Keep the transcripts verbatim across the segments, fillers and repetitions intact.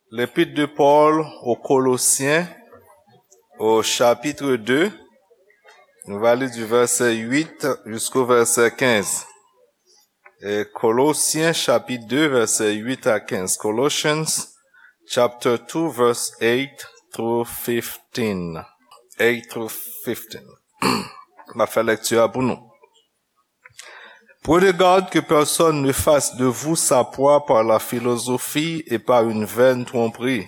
L'épître de Paul aux Colossiens, au chapitre deux, nou va li du verset huit jusqu'au verset quinze. Et Colossiens chapitre deux, verset huit à quinze. Colossians chapter two, verse eight through fifteen. Eight through fifteen. M ap fè lèkti a pou nou. Prenez garde que personne ne fasse de vous sa proie par la philosophie et par une vaine tromperie,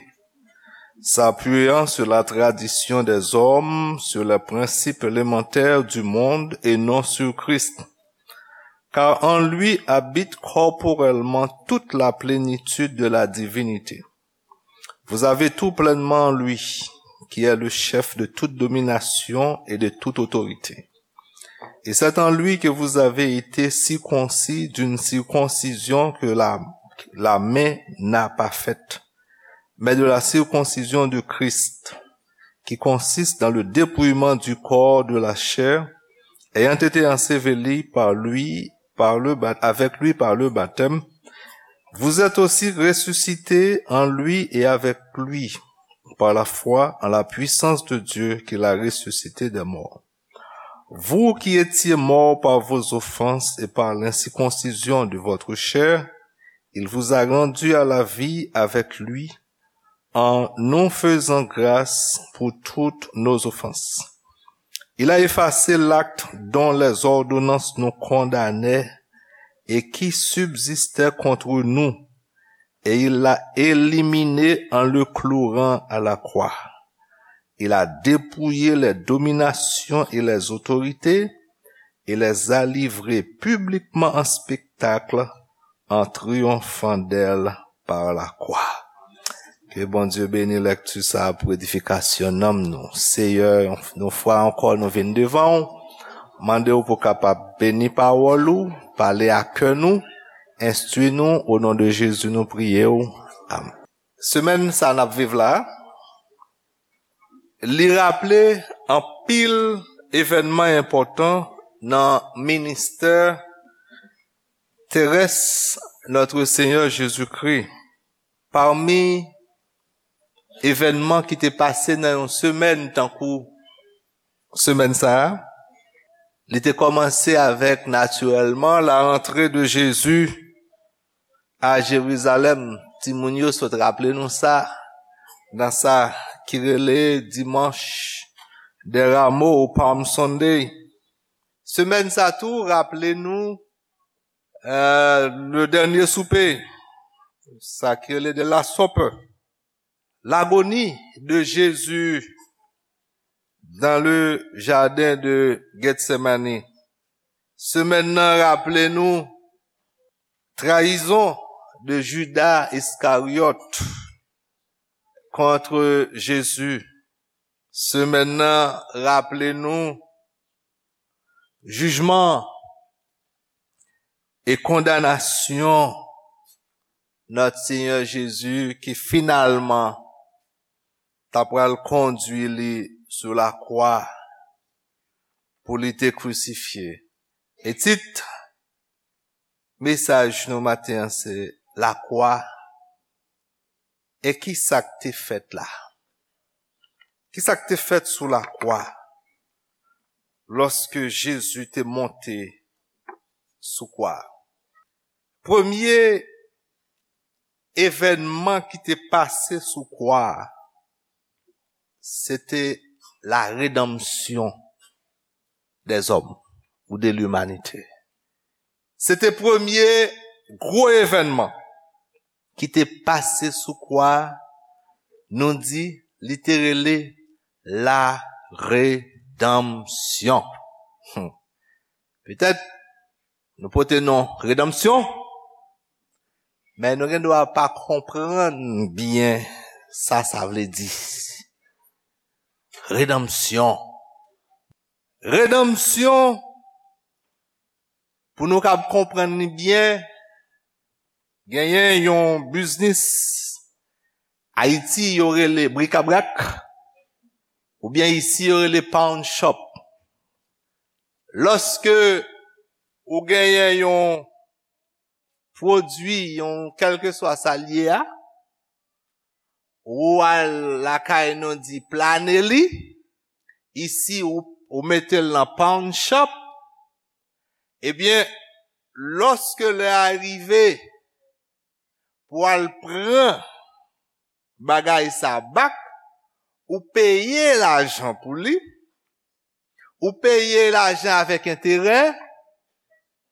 s'appuyant sur la tradition des hommes, sur les principes élémentaires du monde et non sur Christ. Car en lui habite corporellement toute la plénitude de la divinité. Vous avez tout pleinement en lui, qui est le chef de toute domination et de toute autorité. Et c'est en lui que vous avez été circoncis d'une circoncision que la, la main n'a pas faite, mais de la circoncision de Christ, qui consiste dans le dépouillement du corps de la chair, ayant été enseveli par lui, par le ba-, avec lui par le baptême, vous êtes aussi ressuscités en lui et avec lui par la foi en la puissance de Dieu qui l'a ressuscité des morts. Vous qui étiez morts par vos offenses et par l'incirconcision de votre chair, il vous a rendus à la vie avec lui, en nous faisant grâce pour toutes nos offenses. Il a effacé l'acte dont les ordonnances nous condamnaient et qui subsistait contre nous, et il l'a éliminé en le clouant à la croix. Il a dépouillé les dominations et les autorités et les a livrées publiquement en spectacle en triomphant d'elles par la croix. Ke Bondye beni lèkti sa a pou edifikasyon nanm nou. Seyè, yon fwa ankò nou vin devan w, mande w pou kapab beni pawòl ou, pale a kè nou, enstwi nou, o non de Jezi nou priye w. Amèn. Semèn sa n ap viv la, li raple anpil evènman enpòtan nan ministè terès Notre Seigneur Jésus-Christ. Pami evènman ki te pase nan yon semèn tankou semèn sa a, li te kòmanse avèk, natirèlman, la rantre de Jezi a Jerizalèm. Timoun yo sot raple nou sa, nan sa ki rele Dimanche des Rameaux ou Palm Sunday. Semèn sa tou raple nou, euh, le dernier souper, sa ki rele de la Supper. L'agonie de Jésus dans le jardin de Gethsemane. Semèn nan raple nou trayizon de Judas Iscariot contre Jésus. Semèn nan raple nou jijman e kondanasyon Notre Seigneur Jésus ki finalman ta pral kondwi li sou lakwa pou li te krisifye. E tit mesaj nou maten an se lakwa. E ki sa k te fèt la? Ki sa k te fèt sou lakwa lòske Jezi te monte sou kwa? Premye evènman ki te pase sou kwa a, se te la redanmsyon dèzòm ou de limanite. Se te premye gwo evènman ki te pase sou kwa a, nou di li te rele la redanmsyon. Hmm. Petèt nou pote non redanmsyon, men nou gen dwa pa konprann byen sa sa vle di. Redanmsyon. Redanmsyon, pou nou kab konprann li byen, genyen yon biznis Ayiti yo rele brikabrak, oubyen isi yo rele pawn shop. Lòske ou genyen yon pwodui, yon kèlkeswa sa l ye a, ou al lakay nou di plane li, isi ou, ou mete l nan pawn shop, ebyen, lòske lè a rive pou al pran bagay sa bak, ou peye lajan pou li, ou peye lajan avèk enterè,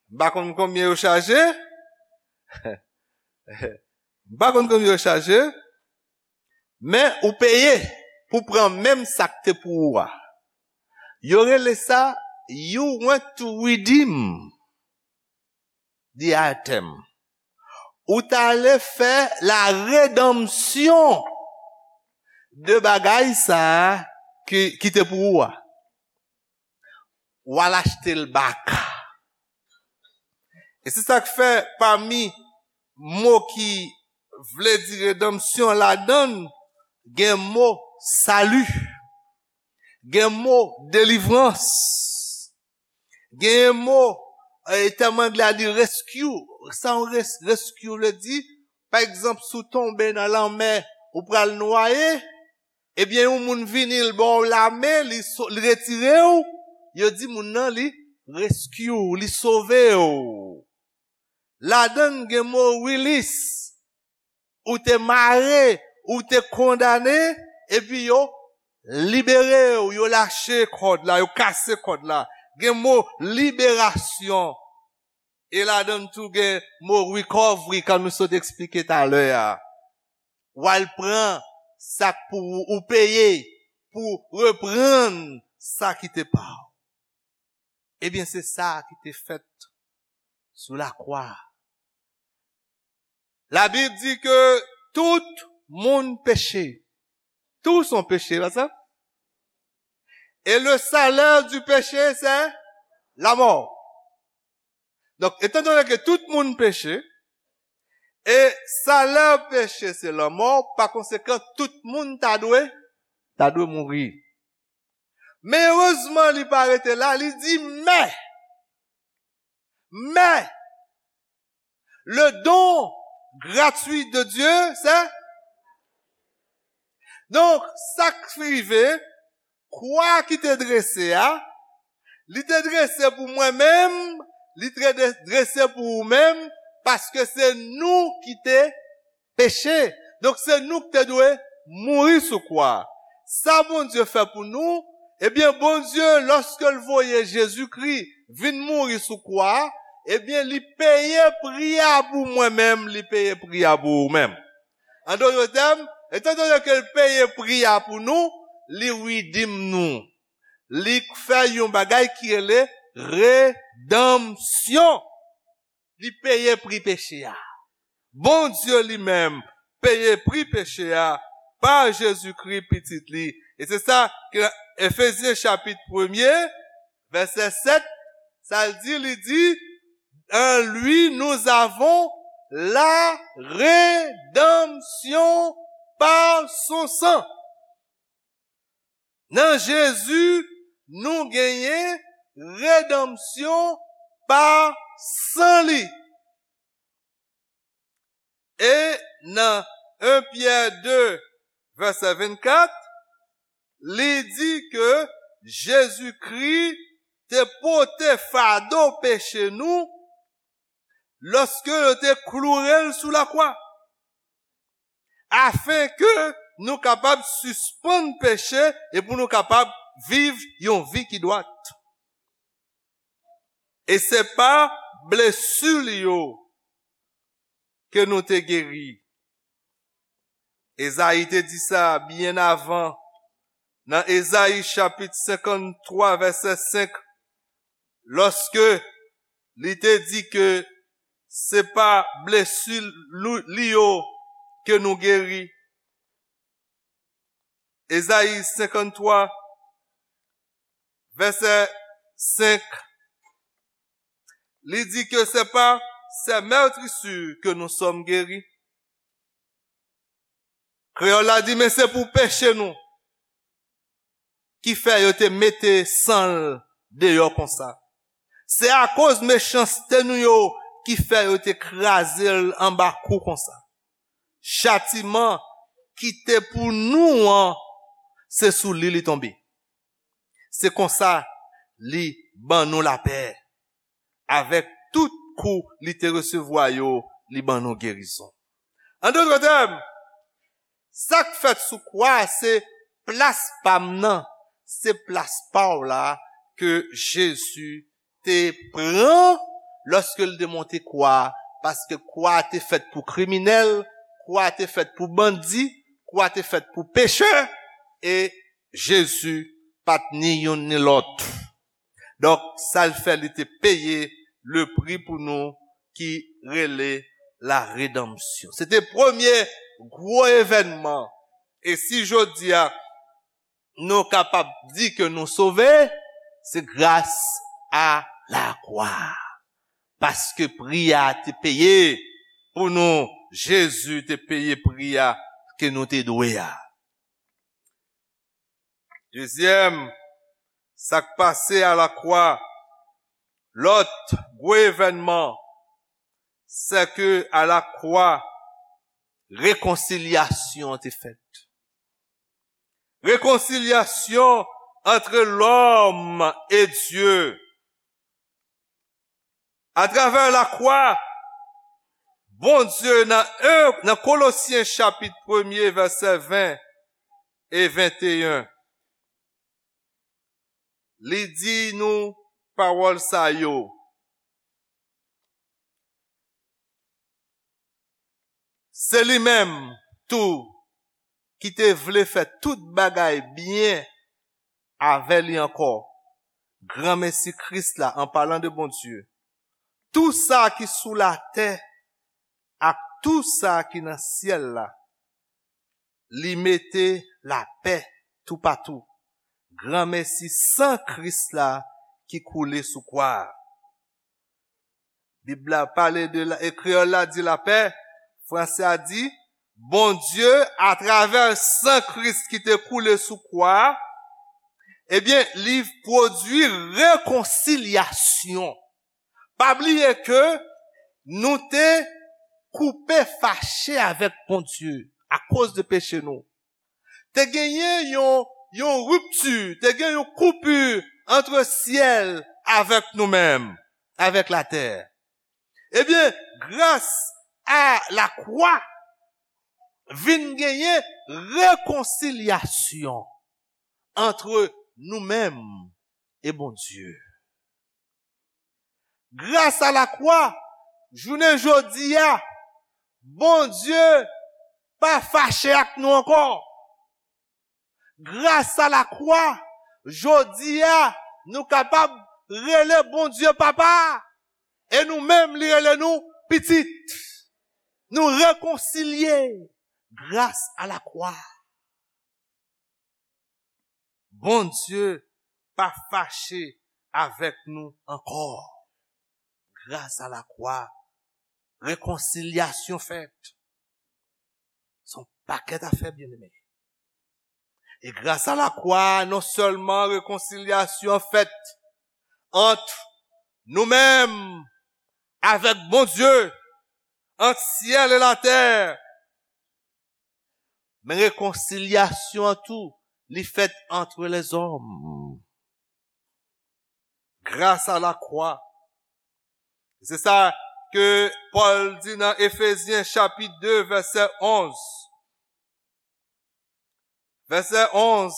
m pa konn konbyen yo chaje, m pa konn konbyen yo chaje, men ou peye pou pran menm sa k te pou ou a. Yo rele sa you went to redeem the item. Ou t ale fè la redanmsyon de bagay sa a ki, ki te pou ou a. Ou al achte l bak. E se sa k fè pami mo ki vle di redanmsyon ladan l, gen mo sali, gen mo delivrans, gen mo, eh, tèm anglè a di rescue. Sa yon res-, rescue vle di, pa egzanp, si w tonbe nan lanmè, ou pral nwaye, ebyen, yon moun vini, l ba w lamen, li so-, li retire w, yo di moun nan, li rescue, li sove w. Ladan l gen mo release. Ou te mare, ou te kondane, epi yo libere w, yo lache kòd la, yo kase kòd la. Gen mo liberasyon. E ladan l tou gen mo recovery, kan nou sot eksplike talè a. W al pran sa k pou ou, ou peye pou reprann sa ki te pa w. Ebyen, se sa ki te fèt sou lakwa. Labib di ke tout moun peche. Tous ont péché, pa sa? Et le salaire du péché, c'est la mort. Donk, etandone ke tout moun peche, e salè peche se lanmò, pa konsekan, tout moun ta dwe, ta dwe mouri. Men erezman, li pa rete la, li di, men, men, le don gratuit de Dieu, c'est, donk, sa k rive, kwa ki te drese a, li te drese pou mwen menm, li te dre-, drese pou ou menm, paske se nou ki te peche. Donk, se nou ki te dwe mouri sou kwa. Sa Bondye fè pou nou, ebyen, Bondye, lòske l voye Jezikri vin mouri sou kwa, ebyen, li peye pri a pou mwen menm, li peye pri a pou ou menm. An dòt tèm, etandone ke l peye pri a pou nou, li redeem nou. Li fè yon bagay ki rele redanmsyon. Li peye pri peche a. Bondye li menm peye pri peche a pa Jezikri, Pitit li. E se sa ke Efezyen chapit premye, vèsè sèt, sa l di, li di, en lui nous avons la rédemption par son sang. Nan Jezi, nou genyen redanmsyon pa san li. E nan en Pyè de, vèsè vennkat, li di ke Jezikri te pote fado peche nou lòske yo te kloure l sou lakwa, afenke nou kapab sispann peche e pou nou kapab viv yon vi ki dwat. E se pa blesi li yo ke nou te geri. Ezayi te di sa byen avan, nan Ezayi chapit senkanntwa, vèsè senk, lòske li te di ke se pa blesi lou-, li yo ke nou geri. Ezayi senkanntwa, vèsè senk, li di ke c'est par ses meurtrissures que nous sommes guéris. Kreyòl la di, men se pou peche nou ki fè yo te mete san l deyò konsa. Se akoz mechanste nou yo ki fè yo te kraze l anba kou konsa. Chatiman ki te pou nou an, se sou li li tonbe. Se konsa li ban nou lapè. Avèk tout kou li te resevwa yo, li ban nou gerizon. An dòt tèm, sa k fèt sou kwa a, se plas pa m nan, se plas pa w la ke Jezi te pran lòske l te monte kwa a, paske kwa a te fèt pou kriminèl, kwa a te fèt pou bandi, kwa a te fèt pou pechè, e Jezi pa t ni youn ni lòt. Donk, sa l fè, li te peye le pri pou nou ki rele la redanmsyon. Se te premye gwo evènman. E si jodi a, nou kapab di ke nou sove, se gras a lakwa. Paske pri a te peye pou nou, Jezi te peye pri a ke nou te dwe a. Dezyèm, sa k pase alakwa, lòt gwo evènman, se ke alakwa, rekonsilyasyon te fèt. Rekonsilyasyon entre l'homme et Dieu. Atravè lakwa, Bondye nan en, nan Kolosyen chapit premye vèsè ven e venteyen, li di nou pawòl sa yo. Se li menm tou ki te vle fè tout bagay byen avè li ankò. Granmesi Kris la, an palan de Bondye, tou sa ki sou latè ak tou sa ki nan syèl la, li mete lapè toupatou. Granmesi san Kris la ki koule sou kwa a. Bib la pale de la, e kreyòl la di lapè, fransè a di, Bondye, atravè san Kris ki te koule sou kwa a, ebyen, li pwodui rekonsilyasyon. Pa bliye ke nou te koupe, fache avèk Bondye akoz de peche nou. Te genyen yon, yon ripti, te gen yon koupi ant syèl avèk nou menm, avèk latè. Ebyen, gras a lakwa, vin genyen rekonsilyasyon ant nou menm e Bondye. Gras a lakwa, jounen jodi a, Bondye pa fache ak nou ankò. Gras a lakwa, jodi a, nou kapab rele Bondye Papa. E nou menm, li rele nou pitit. Nou rekonsilye gras a lakwa. Bondye pa fache avèk nou ankò. Gras a lakwa, rekonsilyasyon fèt. Se yon pakèt afè, byeneme. E gras a lakwa, non sèlman rekonsilyasyon fèt ant nou menm avèk Bondye, ant syèl e latè, men rekonsilyasyon an tou, li fèt ant lèzòm. Gras a lakwa. Se sa ke Pòl di nan Efezyen chapit de, vèsè onz. Vèsè onz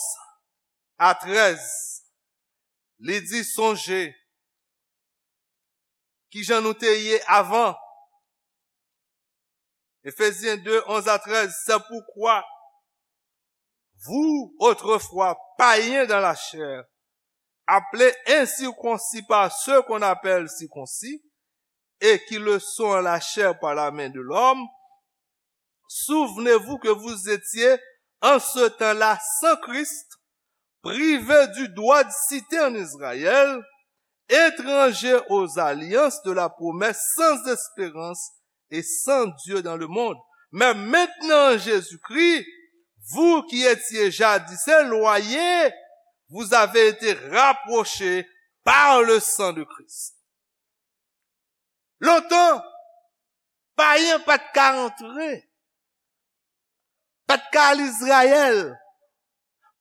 a trèz. Li di, sonje kijan nou te ye avan. Éphésiens deux, onze à treize, c'est pourquoi vous, autrefois païens dans la chair, appelés incirconcis par ceux qu'on appelle circoncis, et qui le sont en la chair par la main de l'homme, souvenez-vous que vous étiez en ce temps-là sans Christ, privés du droit de cité en Israël, étrangers aux alliances de la promesse, sans espérance et sans Dieu dans le monde. Mais maintenant, en Jésus-Christ, vous qui étiez jadis éloignés, vous avez été rapprochés par le sang de Christ. Lontan, payen pa t ka antre. pa t ka al Izrayèl.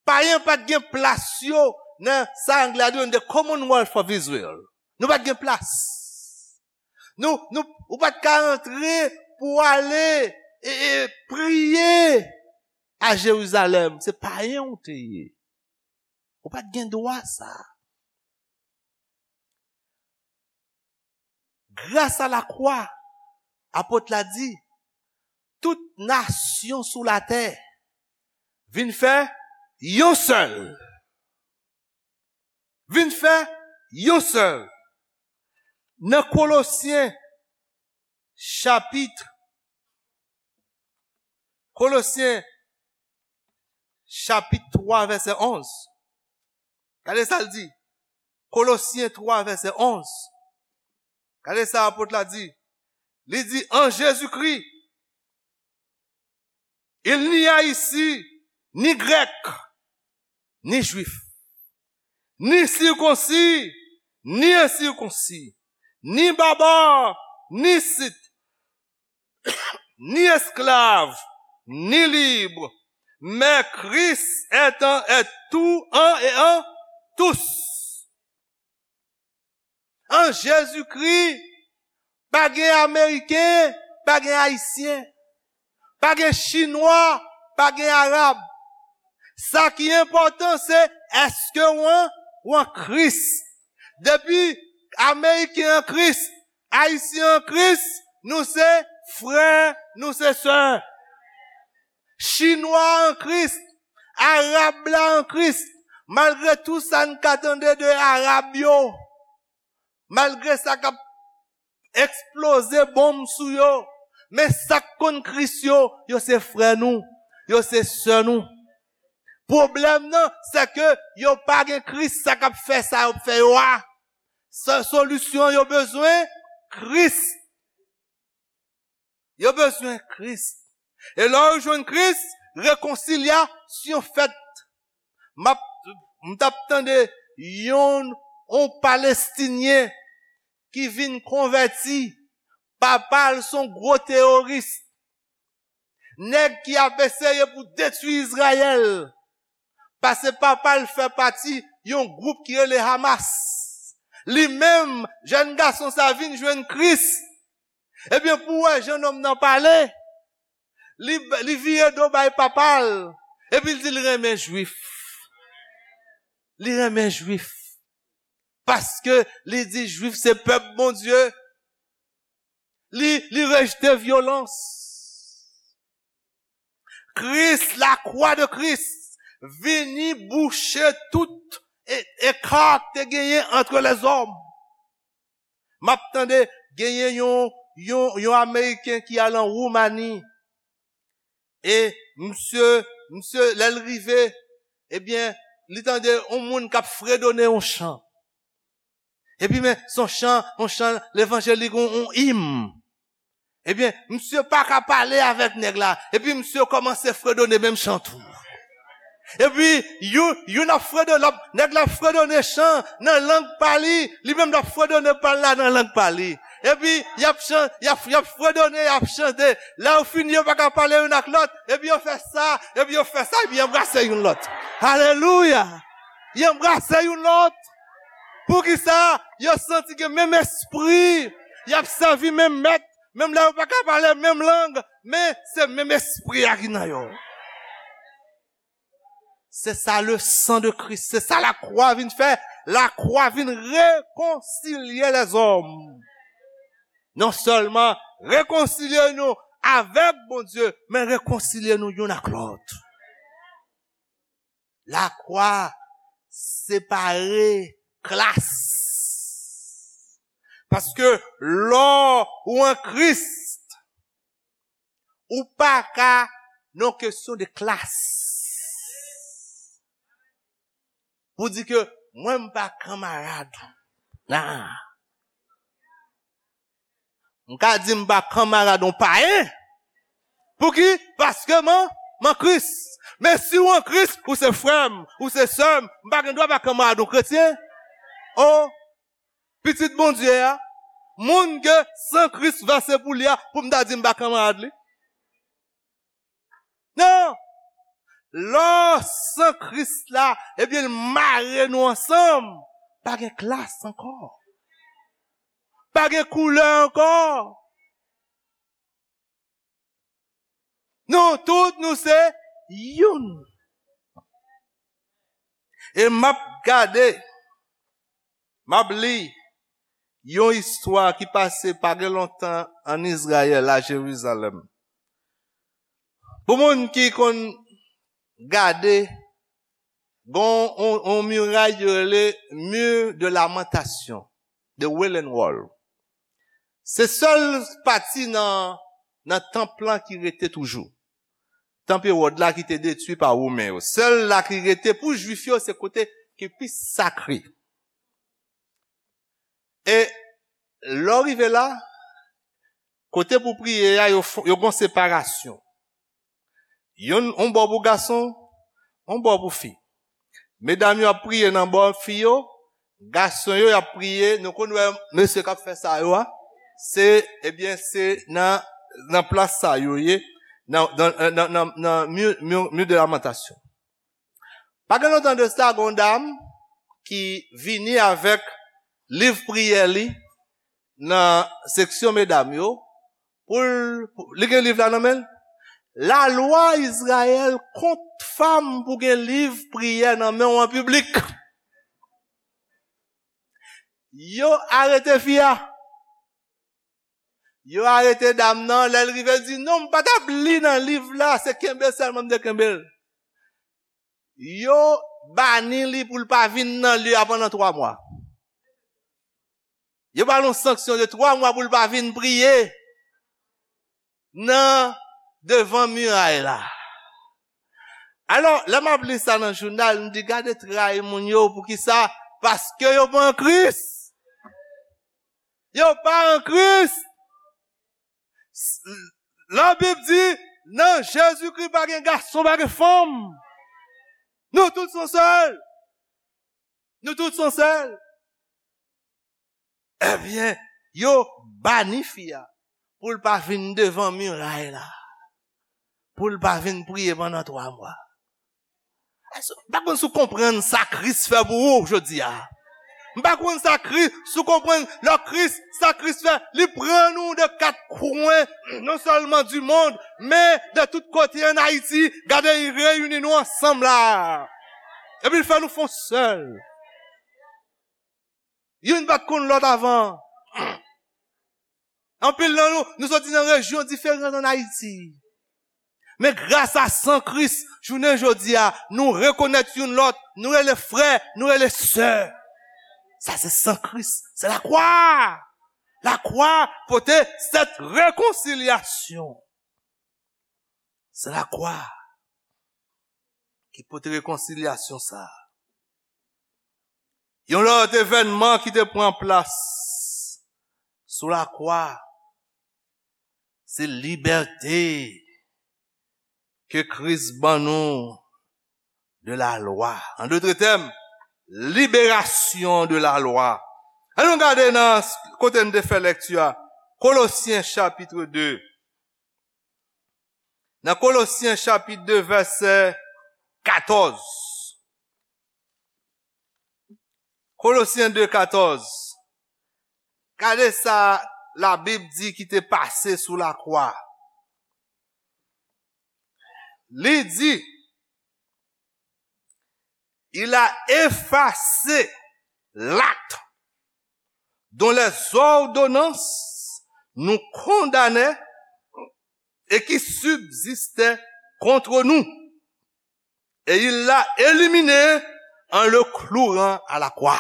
Payen pa t gen plas yo nan sa anglè a di the Commonwealth of Israel. Nou pa t gen plas. Nou, nou, ou pa t ka antre pou ale e, e priye a Jerizalèm. Se payen ou te ye. Ou pa t gen dwa sa. Gras a lakwa, apot la di, tout nasyon sou latè vin fè yon sèl. Vin fè yon sèl. Nan Kolosyen, chapit, Kolosyen, chapit twa, vèsè onz. Gade sa l di. Kolosyen twa, vèsè onz. Gade sa apot la di. Li di, an Jezikri, il n'y a ici ni grec, ni juif, ni circoncis, ni incirconcis, ni barbare, ni scythe, ni esclave, ni libre, mais Christ est en, est tout en et en tous. An Jezikri, pa gen Ameriken, pa gen Ayisyen, pa gen Chinwa, pa gen Arab. Sa ki enpòtan, se èske w an, w an Kris. Depi Ameriken an Kris, Ayisyen an Kris, nou se frè, nou se sè. Chinwa an Kris, Arab la an Kris, malgre tou sa n ka tande de Arab yo, malgre sa k ap eksploze bonm sou yo, men sa k konn Kris yo, yo se frè nou, yo se sè nou. Pwoblèm nan, se ke yo pa gen Kris, sa k ap fè sa yo ap fè yo a. Sa, solisyon yo bezwen Kris. Yo bezwen Kris. E lè yo jwenn Kris, rekonsilyasyon fèt. M ap, m t ap tande yon, yon Palestinyen ki vin konvèti. Papa l se yon gwo teworis. Nèg ki ap eseye pou detwi Izrayèl. Paske papa l fè pati yon gwoup ki rele Hamas. Li menm, jèn gason sa vin jwenn Kris. Ebyen, pou w wè jan nonm nan pale, li, li vire do bay papa l. Epi l di l renmen Jwif. Li renmen Jwif. Paske li di Jwif se pèp Bondye. Li, li rejte vyolans. Kris, la croix de Christ, vini bouche tout e, eka k te genyen entre les hommes. M ap tande genyen yon, yon, yon Ameriken ki al an Woumani. E misye, misye, lè l rive, ebyen, li tande yon moun k ap fredone yon chan. Epi men, se yon chan, yon chan levanjelik, yon, yon im. Ebyen, misye pa ka pale avèk nèg la. Epi misye kòmanse fredone menm chan tou. Epi, youn, youn ap fredone, lòt, nèg la ap fredone chan nan lang pa li, li menm l ap fredone pa l la nan lang pa li. Epi, y ap chan-, y ap, y ap fredone, y ap chante. Lè yo fini, yo pa ka pale youn ak lòt. Epi yo fè sa, epi yo fè sa, epi y anbrase youn lòt. Alelouya! Y anbrase youn lòt. Poukisa? Yo santi gen menm espri. Y ap sèvi menm mèt. Menm lè yo pa ka pale menm lang, men se menm espri a ki nan yo. Se sa le sang de Christ, se sa lakwa vin fè. Lakwa vin rekonsilye lèzòm. Non sèlman rekonsilye nou avèk Bondye, men rekonsilye nou youn ak lòt. Lakwa separe klas. Paske lè w an Kris, ou pa ka nan kesyon de klas. Pou di ke mwen m pa kanmarad. Nan. M ka di m pa kanmarad yon payen. Pouki? Paske m an, m an Kris. Men si w an Kris, ou se frè m, ou se sè m, m pa gen dwa pa kanmarad yon kretyen. O, pitit Bondye a, moun ke san Kris vèse pou li a, pou m ta di m pa kanmarad li? Non, Lò san Kris la, ebyen, l mare nou ansanm. Pa gen klas ankò. Pa gen koulè ankò. Nou tout, nou se youn. E m ap gade, m ap li yon istwa ki pase pa gen lontan ann Izrayèl, a Jerizalèm. Pou moun ki konn gade, gon on, on miray yo rele Mur de Lamentation, de Wailing Wall. Se sèl pati nan, nan tanp lan ki rete toujou. Tanp Ewòd la ki te detwi pa Women yo. Sèl la ki rete pou Jwif yo, se kote ki pi sakre. E lè w rive la, kote pou priye a, yo, fo- yo gon separasyon. Youn, yon bò pou gason, yon bò pou fi. Medam yo ap priye nan bò fi yo, gason yo y ap priye, nou konn wè mesye k ap fè sa yo a, se, ebyen, se nan, nan plas sa yo ye, nan, nan, nan, nan, nan Mur, Mur, Mur de Lamentation. Pa gen lontan de sa, gen yon dam ki vini avèk liv priyè li nan seksyon medam yo, pou l, pou- li gen liv la nan men l. Lalwa Izrayèl kont fanm pou gen liv priyè nan men w an piblik. Yo arete fi a. Yo arete dam nan, lè l rive, l di, "Non, m pa t ap li nan liv la, se kenbe sèlman m te kenbe l." Yo bani li pou l pa vin nan lye a pandan twa mwa. Yo ba l yon sanksyon de twa mwa pou l pa vin priye nan devan miray la. Alò, lè m ap li sa nan jounal, m di, "Gade tray moun yo, poukisa?" Paske yo pa an Kris. Yo pa an Kris. Labib di, nan Jezikri pa gen gason, pa gen fanm. Nou tout se yon sèl. Nou tout se yon sèl. Ebyen, yo bani fi a pou l pa vin devan miray la, pou l pa vin priye pandan twa mwa. M pa konn si w konprann sa Kris fè pou ou jodi a. M pa konn sa Kris, si w konprann lè Kris, sa Kris fè, li pran nou de kat kwen, non sèlman du monde, men de tout kote ann Ayiti, gade, li reyini nou ansanm la. Epi l fè nou fon sèl. Youn pa t konn lòt avan. Anpil nan nou, nou soti nan rejyon diferan ann Ayiti. Men gras a san Kris, jounen jodi a, nou rekonèt youn lòt, nou rele frè, nou rele sè. Sa se san Kris, se lakwa. Lakwa pote sèt rekonsilyasyon. Se lakwa ki pote rekonsilyasyon sa a. Yon lòt evènman ki te pran plas sou lakwa, se libète ke Kris ban nou de la lwa. An dotre tèm, liberasyon de la lwa. Ann nou gade nan s- kote n te fè lèkti a, Kolosyen chapit de. Nan Kolosyen chapit de, vèsè katòz. Kolosyen de katòz. Gade sa Labib di ki te pase sou lakwa. Li di, il a effacé l'acte dont les ordonnances nous condamnaient et qui subsistait contre nous. Et il l'a éliminé en le clouant à la croix.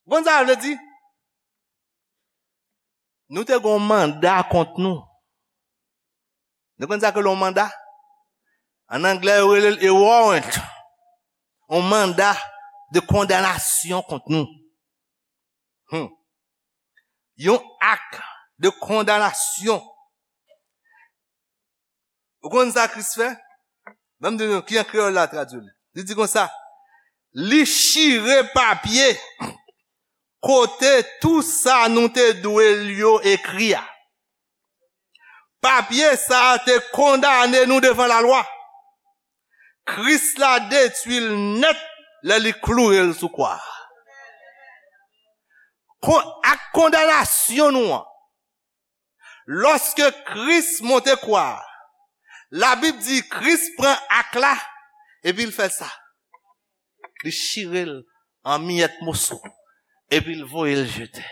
Bon, sa vle di, nou te gen yon manda kont nou. Nou konn sa ke l yon manda? An anglè, yo rele l a warrant. Yon manda de kondanasyon kont nou. Hmm. Yon ak de kondanasyon. Ou konn sa Kris fè? Ban m di nou, ki an kreyòl la tradui li. Li di konsa, li chire papye kote tou sa nou te dwe l yo ekri a. Papye sa a te kondane nou devan lalwa. Kris la detwi l nèt lè li kloure l sou kwa a. Kon, ak kondanasyon nou an, lòske Kris monte kwa a, Labib di Kris pran ak la, epi l fè sa. Li chire l an miyèt moso, epi l voye l jete.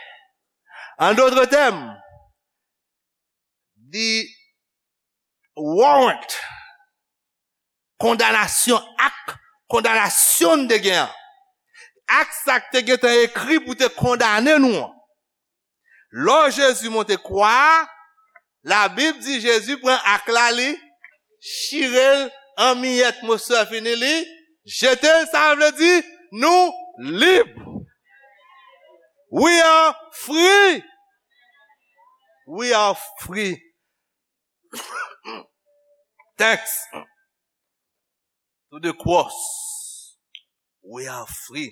An dòt tèm, the warrant, kondanasyon, ak kondanasyon n te gen an. Ak sa k te gentan ekri pou te kondane nou an. Lò Jezi monte kwa a, Labib di Jezi pran ak la li, chire l an miyèt, moso a fini li, jete l, sa vle di nou lib. We are free. We are free. Thanks to the cross, we are free.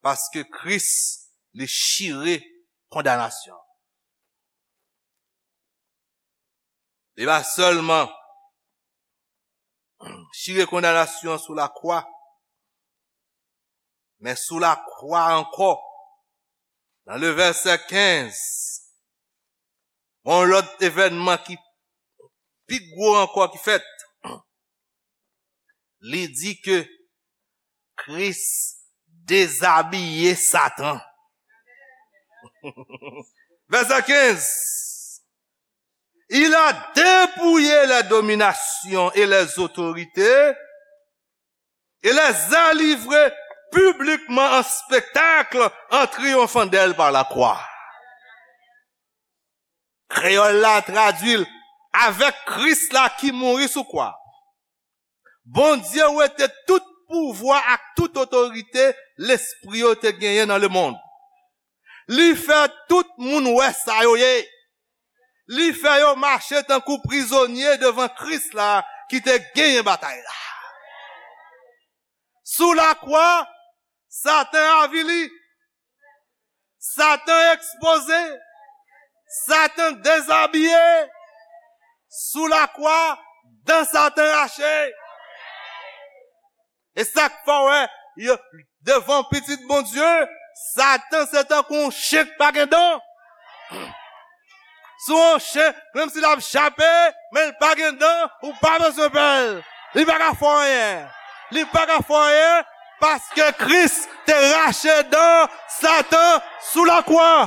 Paske Kris, li chire kondanasyon. Li pa sèlman chire kondanasyon sou lakwa, men sou lakwa ankò, nan le vèsè kenz, yon lòt evènman ki pi gwo ankò ki fèt. Li di ke Kris dezabiye Satan. Vèsè kenz. Il a dépouillé les dominations et les autorités et les a livrées publiquement en spectacle en triomphant d'elles par la croix. Kreyòl la tradui l, avèk Kris la ki mouri sou kwa, Bondye wete tout pouvwa ak tout otorite lespri yo te genyen nan lemonn. Li fè tout moun wè sa yo ye. Li fè yo mache tankou prizonye devan Kris la ki te genyen batay la. Sou lakwa, Satan avili. Satan ekspoze. Satan dezabiye. Sou lakwa, dan Satan rache. E sa k fè w wè, yo, devan Pitit Bondye, Satan se tankou yon chen k pa gen dan. Sou yon chen, menm si l ap jape, men l pa gen dan, ou pa bezwen pè l. Li pa ka fè w anyen. Li pa ka fè w anyen, paske Kris te rache dan Satan sou lakwa.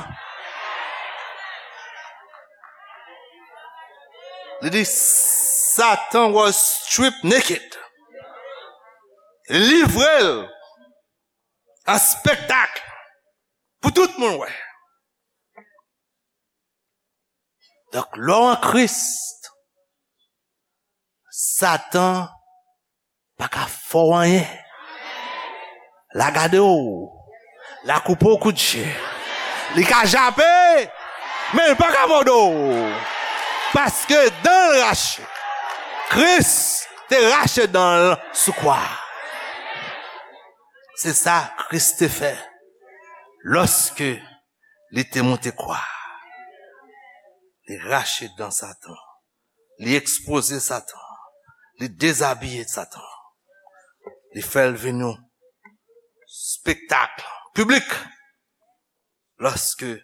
Li di, Satan was stripped naked. Livre l an spektak pou tout moun wè. Donk, lè w an Kris, Satan pa ka fè w anyen. L a gade w. L a koupe w kout je. Li ka jape, men l pa ka mòde w. Paske dan l rache. Kris te rache dan l sou kwa. Se sa Kris te fè lòske li te monte kwa. Li rache dan Satan. Li ekspoze Satan. Li dezabiye Satan. Li fè l vin yon spektak piblik lòske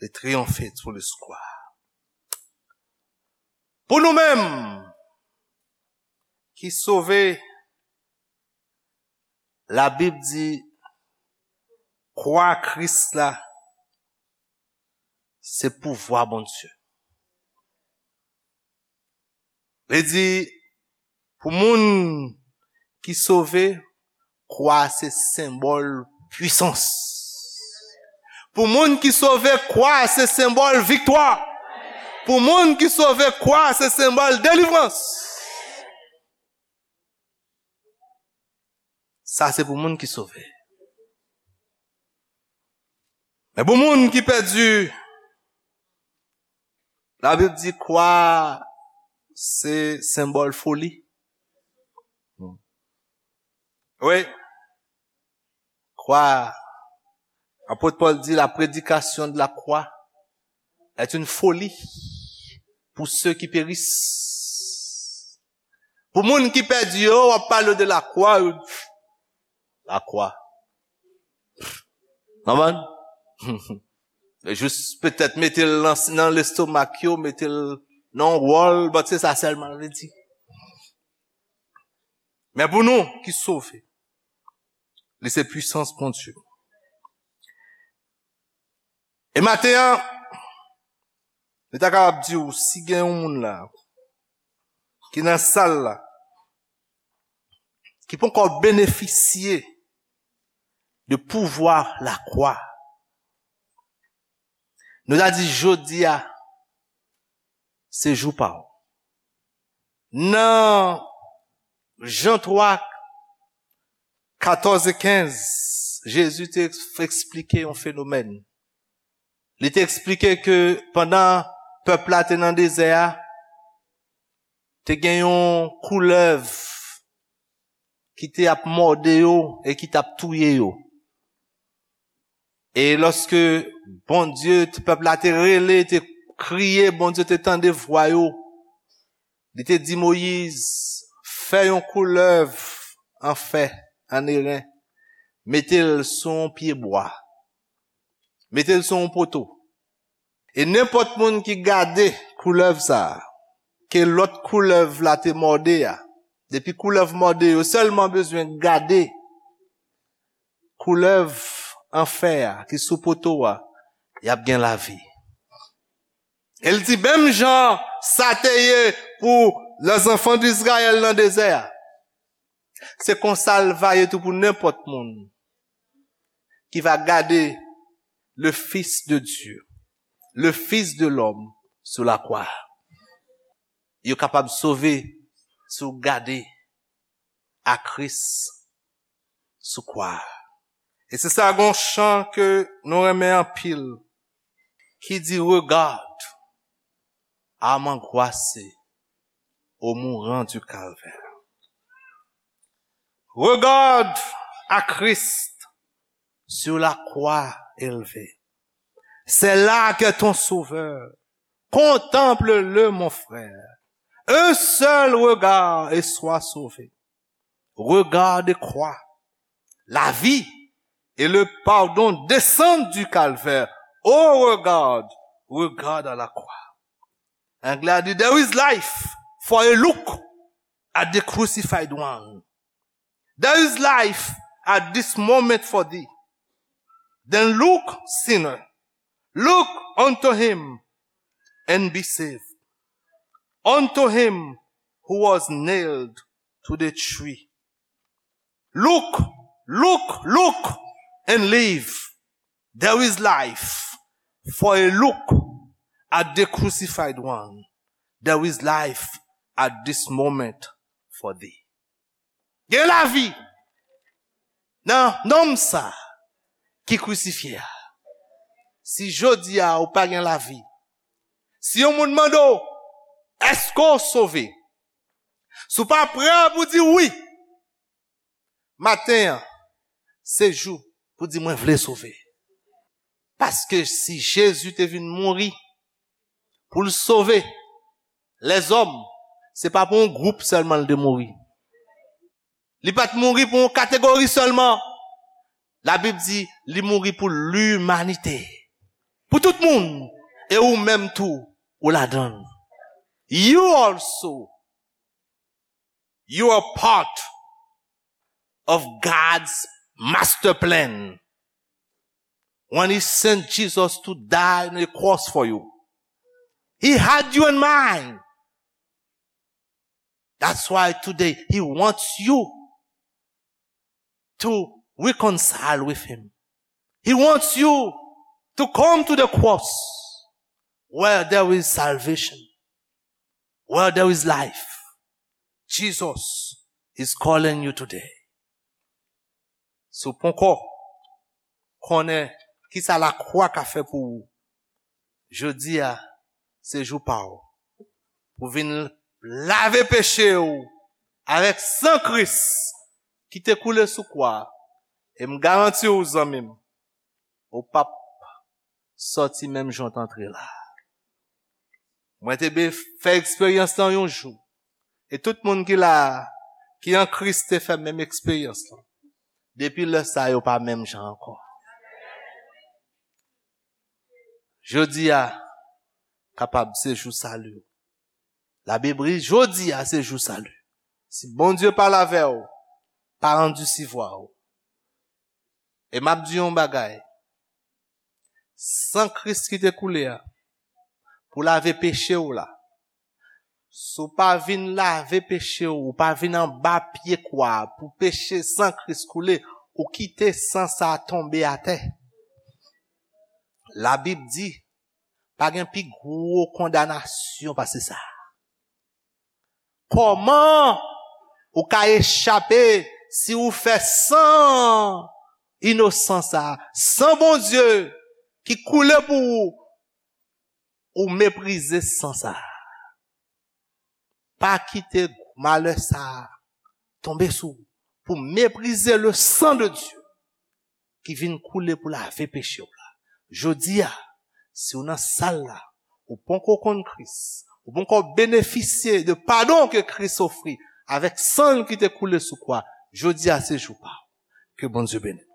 li triyonfe sou li sou kwa. Pou nou menm ki sove, Labib di, kwa Kris la, se pouvwa Bondye. Li di, pou moun ki sove, kwa se senbòl pwisans. Pou moun ki sove, kwa se senbòl viktwa. Pou moun ki sove, kwa se senbòl delivrans. Sa se pou moun ki sove. Men pou moun ki pèdi, Labib di kwa se senbòl foli. Wi. Kwa, apot Pòl di, la prédication de la croix est une folie. Pour ceux qui périssent. Pou moun ki pèdi yo, w ap pale de lakwa, yo. Lakwa. Konprann? Jis petèt mete l nan, nan lestomak yo, mete l nan yon wòl, but se sa sèlman l vle di. Men pou nou ki sove, li se pwisans Bondye. E maten an, nou ta kapab di w, si gen yon moun la, ki nan sal la, ki poko benefisye de pouvwa lakwa, nou ta di jodi a, se jou pa w. Nan Jan twa, katòz e kenz, Jezi te eks-, eksplike yon fenomèn. Li te eksplike ke pandan pèp la te nan dezè a, te gen yon koulèv ki te ap mòde yo e ki t ap touye yo. E lòske Bondye, pèp la te rele, te kriye, Bondye te tande vwa yo. Li te di Moyiz, fè yon koulèv an fè, an eren, mete l sou yon pye bwa, mete l sou yon poto. E nenpòt moun ki gade koulèv sa a, ke lòt koulèv la te mòde a, depi koulèv mòde, yo sèlman bezwen gade koulèv an fè a ki sou poto a, y ap gen lavi. E l di, menm jan sa te ye pou lèzanfan d Izrayèl nan dezè a, se konsa l va ye tou pou nenpòt moun ki va gade le Fils de Dieu, le Fils de l'homme sur la croix. Yo kapab sove si w gade a Kris sou kwa. E se sa, gon chan ke nou renmen anpil, ki di, regarde âme angoissée au mourant du calvaire. Regarde à Christ sur la croix élevée. C'est là qu'est ton sauveur. Contemple-le, mon frère. Un seul regard et sois sauvé. Regarde et crois. La vie et le pardon descendent du calvaire. Oh, regarde, regarde à la croix. Anglè a di, there is life for a look at the crucified one. There is life at this moment for thee. Then look, sinner, look unto him and be saved. Unto him who was nailed to the tree. Look, look, look and live. There is life for a look at the crucified one. There is life at this moment for thee. Gen lavi nan nonm sa ki krisifye a. Si jodi a ou pa gen lavi, si yon moun mande w, èske w sove? Si w pa prè pou di wi, maten an, se jou pou di mwen vle sove. Paske si Jezi te vin mouri pou l sove lèzòm, se pa pou yon gwoup sèlman l te mouri. Li pa t mouri pou yon kategori sèlman. Labib di li mouri pou limanite. Pou tout moun. E ou menm tou, ou ladan l. You also, you are part of God's master plan. When he sent Jesus to die on the cross for you, he had you in mind. That's why today he wants you to reconcile with him. He wants you to come to the cross where there is salvation, where there is life. Jesus is calling you today. Si w poko konnen kisa lakwa ka fè pou ou, jodi a se jou pa w pou vin lave peche w avèk san Kris ki te koule sou kwa a. E m garanti w, zanmi m, ou p ap sòti menm jan w t antre la. Mwen te be fè eksperyans lan yon jou. E tout moun ki la a, ki an Kris te fè menm eksperyans lan. Depi lè sa yo pa menm jan ankò. Jodi a kapab se jou sali w. Labib di jodi a se jou sali. Si Bondye pale avè w, pa andisivwa w. E m ap di yon bagay. San Kris ki te koule a, pou lave peche w la. Si w pa vin lave peche w, ou pa vin anba pye kwa a pou peche san Kris koule, ou kite san sa a tonbe atè. Labib di, pa gen pi gwo kondanasyon pase sa. Kòman ou ka echape si ou fè san inosan sa, san Bondye ki koule pou ou, ou meprize san sa. Pa kite malè sa tonbe sou ou pou meprize le sang de Dieu ki vin koule pou lave peche w la. Jodi a, si w nan sal la, ou poko konn Kris, ou poko benefisye de padon ke Kris ofri avèk san l ki te koule sou kwa, jodi a se jou pa w. Ke Bondye beni.